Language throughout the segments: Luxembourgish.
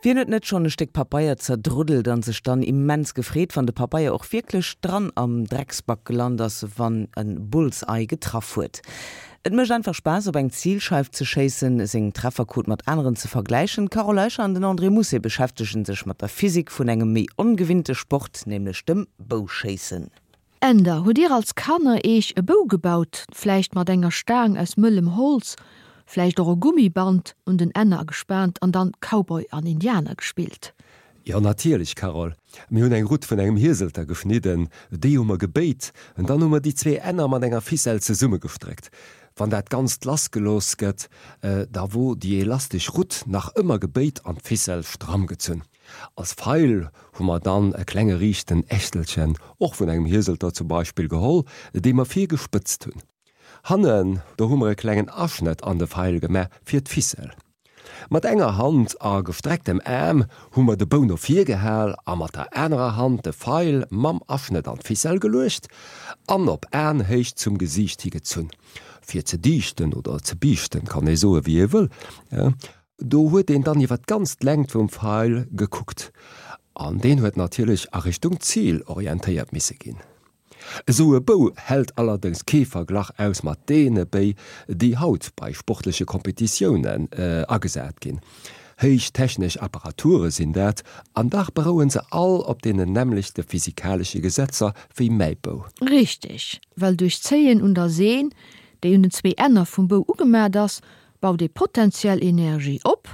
Wien huet net schonn e Stéck Papeier zerdruddelt an sech dann immens gefreet, wann de Papeier och wierklech dran am Drecksback gelant ass, wann en Bullseye getraff huet? Et mécht einfach Spaass op eng Zilscheif ze schéissen, seng Trefferquot mat aneren ze vergläichen. D'Carole Eicher an den André Mousset beschäftegen sech mat der Physik vun engem méi ongewinnte Sport, nämlech dem Bouschéissen. Änder, Hutt dir als Kanner eech e Bou gebaut, vläicht mat enger Staang aus mëllem Holz, vläicht och e Gummiband un den Enner gespaant an dann Cowboy an Indianer gespillt? Jo natierlech Carole, mir hunn eng Rutt vun engem Hieselter geschnidden, déi hu mer gebéit en dann hu mer déi zwee Enner mat enger Ficelle zesummegestréckt. Wann dat Ganzt lassgelooss gëtt, da wor déi elastesch Rutt nach ëmmer gebéit an d'Ficelle stramm gezunn. Als Feil hu mer dann e klenge riichten Ächtelchen, och vun engem Hieselter zum Beispill, geholl, dee mer vir gespëtzt hunn. Hannen, do hu mer e klengen Aschnëtt an de Feil gemaach fir d'Ficelle. Mat enger Hand a gestrecktem Aarm hu mer de Bou no vir gehal a mat der anerer Hand de Feil mam Aschnëtt an d'Ficelle geluecht an op Aenhéicht zum Gesiicht hi gezunn, fir ze dichten oder ze biichten, kann ee soe wéi ee wëll. Do huet een dann iwwer d'ganz d'Längt vum Feil gekuckt an deen huet natierlech a Richtung Zil orientéiert misse ginn. Esou e Bou hält allerdéngs kee Verglach aus mat deene Béi, déi haut bei sportleche Kompetitiounen agesat ginn. Héich technesch Apparature sinn dat, an dach beroue se all op deenen nämmlechte physikalesche Gesetzer wéi mäi Bou. Richteg, well duerch d'Zéien un der Seen, déi un den zwéi Enner vum Bou ugemat ass, baut ee potentiell Energie op,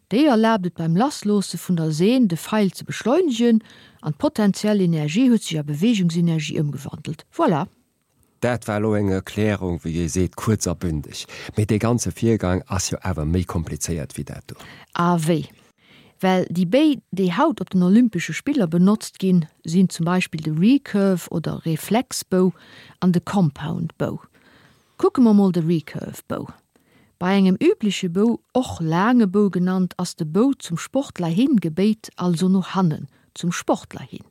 déi erlaabt et beim Lassloosse vun der Seen de Feil ze beschleunegen an d'potentiell Energie huet sech a Beweegungsenergie ëmgewandelt. Voilà! Dat war elo eng Erklärung, wéi ee seet, kuerz a bündeg. Mee dee ganze Virgang ass jo awer méi komplizéiert wéi dat do. A wéi? Well déi Béi, déi haut op den Olympesche Spiller benotzt ginn, sinn zum Beispill de Recurve oder Reflexbou an de Compound Bow. Kucke mer mol de Recurve Bow. Bei engem übleche Bou, och laange Bou genannt, ass de Bou zum Sportler hin gebéit, also no hannen zum Sportler hin.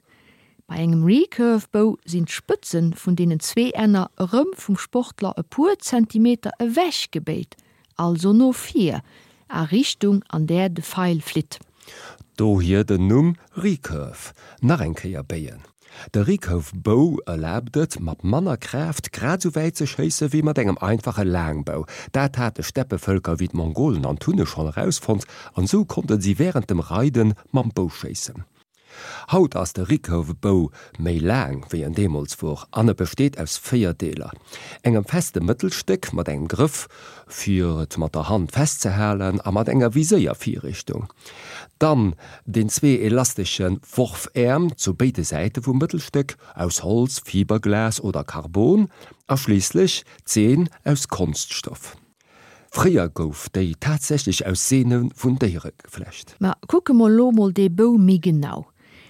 Bei engem Recurve Bou sinn d'Spëtzen vun deenen zwee Enner erëm vum Sportler e puer Zentimeter ewech gebéit, also no vir, a Richtung an där de Feil flitt. Dohier den Numm Recurve, nach eng Kéier béien. De Recurve Bow erlaabt et, mat manner Kraaft grad esou wäit ze schéisse wéi mat engem einfache Laangbou. Dat hate Steppevëlker wéi d'Mongolen an d'Hunne schonn erausfonnt an esou konnte si wärend dem Reide mam Bou schéissen. Haut ass de Recurve Bow méi laang wéi en deemools wor an e besteet aus 4 Deeler, engem feste Mëttelstéck mat engem Grëff fir et mat der Hand festzehalen a mat enger Viséiervirrichtung, dann den zwee elastesche Worfäerm zu béide Säite vum Mëttelstéck, aus Holz, Fiberglas oder Carbon, a schliisslech d'Seen aus Konststoff. Fréier gouf déi tatsächlech aus Seene vun Déiere geflecht. Ma kucke mer elo mol dee Bou méi genau.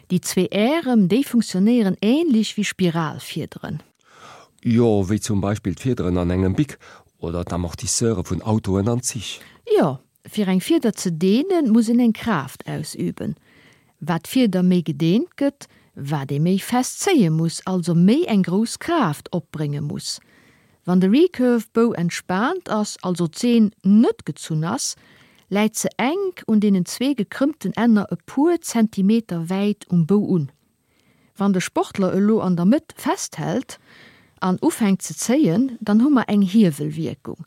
Déi zwee Ärem, déi funktionéieren ähnlech wéi Spiralfiederen. Jo, wéi zum Beispill d'Fiederen an engem Bic oder d'Amortisseure vun Autoen an Zich. Jo, fir eng Fieder ze deenen, muss een eng Kraaft ausüben. Wat d'Fieder méi gedeent gëtt, wat ee méi fest zéie muss, also méi eng grouss Kraaft opbrénge muss. Wann de Recurve Bow entspaant ass, also d'Seen net gezunn ass, läit se enk un deenen zwee gekrëmmten Enner e puer Zentimeter wäit um Bou un. Wann de Sportler elo an der Mëtt festhält an ufänkt ze zéien, dann hu mer eng Hiewelwierkung.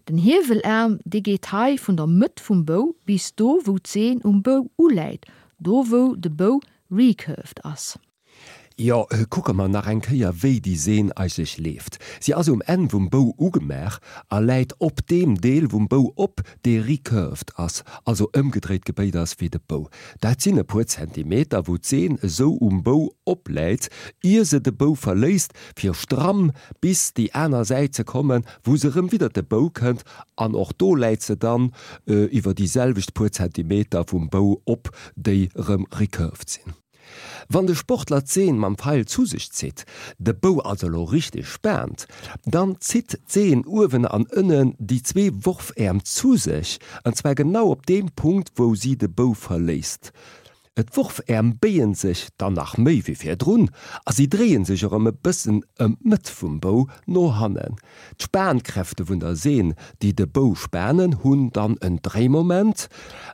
Den Hiewelaarm, dee geet hei vun der Mëtt vum Bou bis do wou d'Seen um Bou uläit, do wou de Bou recurved ass. Jo, kucke mer nach eng Kéier wéi déi Seen eigentlech leeft. Si ass um Enn vum Bou ugemaach a läit op deem Deel vum Bou op, dee recurved ass, also ëmgedréit gebéit ass wéi de Bou. Dat sinn e puer Zentimeter, wou d'Seen esou um Bou opläit, ier se de Bou verléisst, fir stramm bis déi aner Säit ze kommen, wou se erëm widder de Bou kënnt, an och do läit se dann iwwer déi selwecht puer Zentimeter vum Bou op, déi erëm recurved sinn. Wann de Sportler d'Seen mam Feil zu sech zitt, de Bou also elo richteg spaant, dann zitt d'Seen uewen an ënnen déi zwee Worfäerm zu sech, an zwar genau op deem Punkt wou si de Bou verléisst. D'Worfäerm béien sech dann nach méi wéi virdrun a si dréie sech erëm e bëssen ëm d'Mëtt vum Bou no hannen. D'Spankräfte vun der Seen, déi de Bou spanen, hunn dann en Dréimoment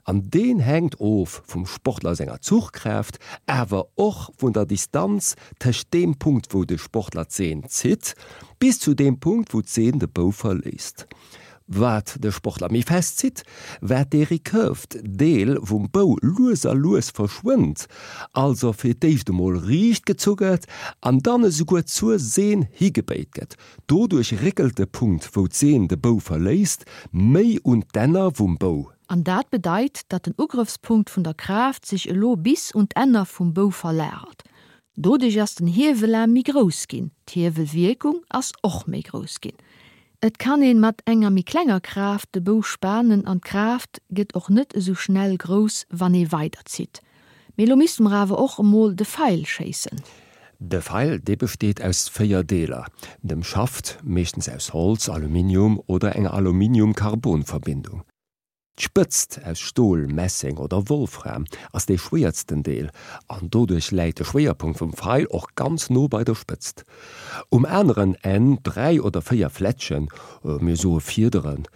an deen hänkt of vum Sportler senger Zuchkraaft, awer och vun der Distanz tëscht deem Punkt wou de Sportler d'Seen zitt, bis zu deem Punkt wou d'Seen de Bou verléisst. Wat de Sportler méi fest zitt, wat dee recurved Deel vum Bou lues a lues verschwënnt, also fir d'éischt emol riicht gezu gëtt an dann esouguer zur Seen higebéit gëtt. Doduerch réckelt de Punkt, wou d'Seen de Bou verléisst, méi un d'Enner vum Bou. An dat bedeit, datt den Ugrëffspunkt vun der Kraaft sech elo bis un d'Enner vum Bou verlagert. Doduerch ass den Hiewelaarm méi grouss ginn, d'Hiewelwierkung ass och méi grouss ginn. Et kann een mat enger méi klenger Kraaft de Bou spanen an d'Kraaft gëtt och net esou schnell grouss wann ee weider zitt. Mee lo misste mer awer och emol de Feil schéissen. De Feil, dee besteet aus 4 Deeler, dem Schaft, meeschtens aus Holz, Aluminium oder enger Aluminium-Carbon-Verbindung. D'Spëtzt, aus Stol, Messeng oder Wolfram, ass dee schwéiersten Deel an doduerch läit de Schwéierpunkt vum Feil och ganz no bei der Spëtzt. Um aneren Enn 3 oder 4 Flätschen, mir soe Fiederen,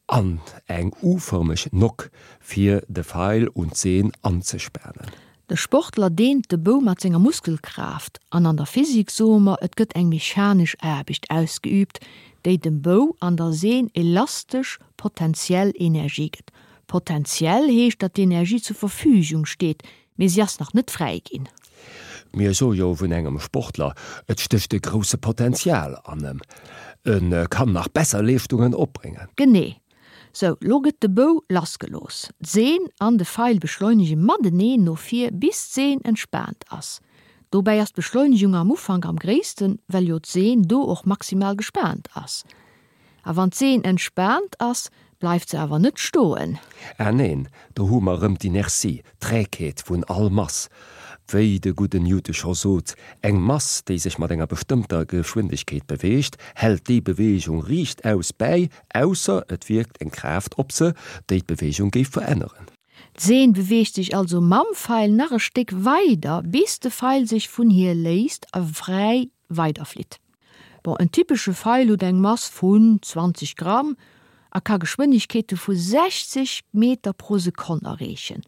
an eng U-fërmeg Nock, fir de Feil un d'Seen anzespanen. De Sportler deent de Bou mat senger Muskelkraaft an an der Physik soe mer, et gëtt eng mechanesch Aarbecht ausgeüübt, déi dem Bou an der Seen elastesch potentiell Energie gëtt. Potentiell heescht, datt d'Energie zur Verfügung steet, mee si ass nach net fräi ginn. Mir soe jo vun engem Sportler, et stécht e grousse Potential an em, e kann nach besser Leeschtungen opbréngen. Genee. Sou, lo gëtt de Bou lassgelooss. D'Seen an de Feil beschleunege mateneen no vir, bis d'Seen entspaant ass. Dobäi ass d'Beschleunegung am Ufank am gréissten, well jo d'Seen do och maximal gespaant ass. A wann d'Seen entspaant ass, bleift se awer net stoen. Ah neen, do hu mer erëm d'Inertie, d'Trägheet vun all Mass. Wéi de gudden Newton scho sot, Eng Mass, déi sech mat enger bestëmmter Geschwindegkeet beweegt, hält déi Beweegung riichtaus bäi, ausser et wierkt eng Kraaft op se, déi d'Beweegung géif veränneren. D'Seen beweegt sech also mam Feil nach e Stéck weider, bis de Feil sech vun hir léisst a fräi weiderflitt. Bon, en typesche Feil huet eng Mass vun 20 Gramm a ka Geschwënnegkeete vu 60 Meter pro Sekonn erreechen.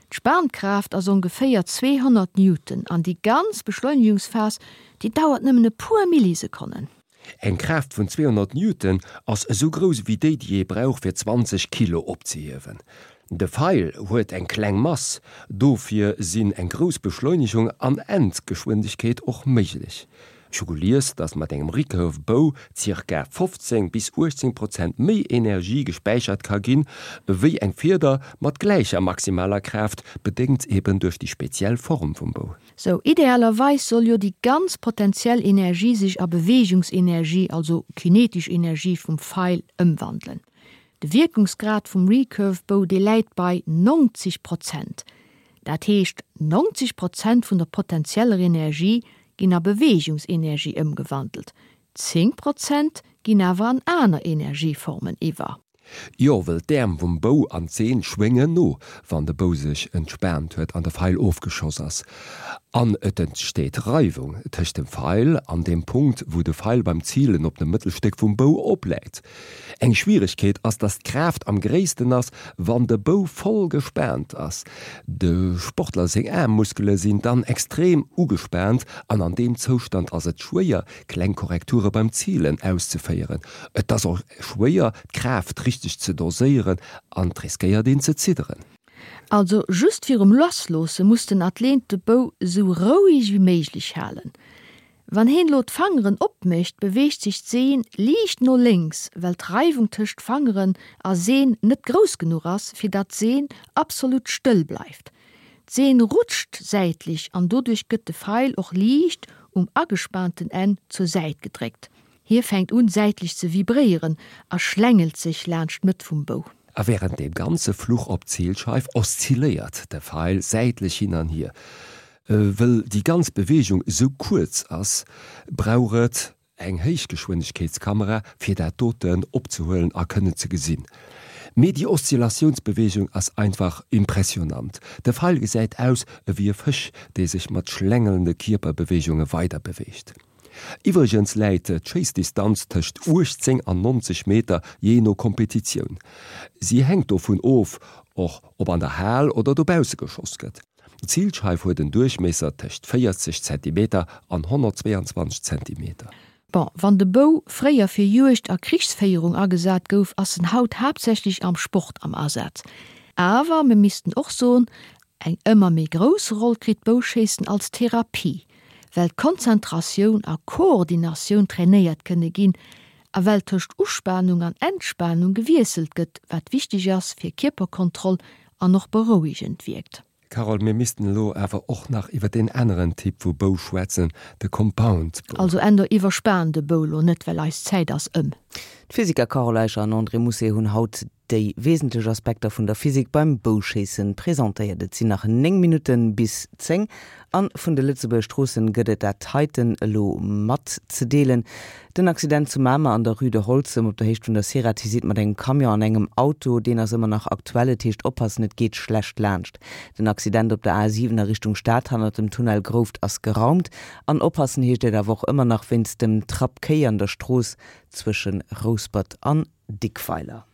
D'Spankraaft ass ongeféier 200 Newton an déi ganz Beschleunegungsphas, déi dauert nëmmen e puer Millisekonnen. Eng Kraaft vun 200 Newton ass esou grouss ewéi déi, déi ee brauch fir 20 Kilo opzehiewen. De Feil huet eng kleng Mass, dofir sinn eng grouss Beschleunegung an Endgeschwindegkeet och méiglech. Ech hu gelies, dass mat engem Recurve Bow zirka 15 bis 18 Prozent méi Energie gespäichert ka ginn, ewéi eng Fieder mat gläicher maximaler Kraaft, bedéngt eben duerch déi speziell Form vum Bou. Sou, idealerweis soll jo déi ganz potentiell Energie sech a Beweegungsenergie, also kinetesch Energie vum Feil ëmwandelen. De Wierkungsgrad vum Recurve Bow, dee läit bei 90 Prozent. Dat heescht, 90 Prozent vun der potentieller Energie ginn a Beweegungsenergie ëmgewandelt, 10 Prozent ginn awer an aner Energieformen iwwer. Jo, wëll d'Äerm vum Bou an d'Seen schwéngen no, wann de Bou sech entspaant huet an de Feil ofgeschoss ass. An et entsteet Reiwung tëscht dem Feil an deem Punkt, wou de Feil beim Zilen op dem Mëttelstéck vum Bou opläit. Eng Schwieregkeet ass, dass d'Kraaft am gréissten ass, wann de Bou voll gespaant ass. De Sportler seng Aarmmuskele sinn dann extrem ugespaant an an deem Zoustand ass et schwéier, kleng Korrekture beim Zilen auszeféieren. Et ass och schwéier, d'Kraaft richteg ze doséieren an et riskéiert een ze zidderen. Also just virum Lassloosse muss den Athlet de Bou esou roueg wéi méiglech halen. Wann heen lo d'Fangeren opmécht, beweegt sech d'Seen liicht no lénks, well d'Reiwung tëscht Fangeren a Seen net grouss genuch ass, fir datt d'Seen absolut stëll bleift. D'Seen rutscht säitlech an doduerch gëtt de Feil och liicht um agespaanten Enn zur Säit gedréckt. Hie fänkt un säitlech ze vibréieren a schlängelt sech laanscht d'Mëtt vum Bou. A wärend deem ganze Fluch op d'Zilscheif oszilléiert de Feil säitlech hin an hier. Wëll déi ganz Beweegung esou kuerz ass, brauch et eng Héichgeschwindegkeetskamera fir dat doten opzehuelen a kënnen ze gesinn. Mee déi Oszillatiounsbeweegung ass einfach impressionant. De Feil gesäit aus ewéi e Fësch, dee sech mat schlängelnde Kierperbeweegunge weiderbeweegt. Iwwregens läit d'Schéissdistanz tëscht 18 an 90 Meter, jee no Kompetitioun. Si hänkt dovun of, och ob an der Hal oder dobausse geschoss gëtt. D'Zilscheif huet en Duerchmiesser tëscht 40 Zentimeter an 122 Zentimeter. Bon, wann de Bou fréier fir Juegd a Krichsféierung agesat gouf, ass en haut haaptsächlech am Sport am Asaz. Awer mir missten och soen, eng ëmmer méi grouss Roll kritt d'Bouschéissen als Therapie, well Konzentratioun a Koordinatioun trainéiert kënne ginn a well tëscht Uspanung an Entspanung gewiesselt gëtt, wat wichteg ass fir Kierperkontroll an och berouegend wierkt. Carole, mir missten elo awer och nach iwwer deen aneren Typ vu Bou schwätzen, de Compound Bow. Also Änder, iwwerspan de Bou lo net, well eis Zäit ass ëm. D'Physiker Carole Eicher an André Mousset hunn haut déi wesentlech Aspekter vun der Physik beim Bouschéissen presentéiert. Et sinn nach 9 Minutten bis 10 an vun de Lëtzebuerger Stroossen gëtt et dat heiten elo matzedeelen. Den Accident zu Mamer an der Rue de Holzem op der Héicht vun der Ceratizit mat engem Camion an engem Auto, deen ass ëmmer nach aktuell. Et heescht oppassen, et geet schlecht laanscht. Den Accident op der A7 a Richtung Stad hannert dem Tunnel Grouft ass geraumt. An oppassen heescht et awer och ëmmer nach wéinst dem Trapp Kéi an der Strooss zwësche Rouspert an Dickweiler.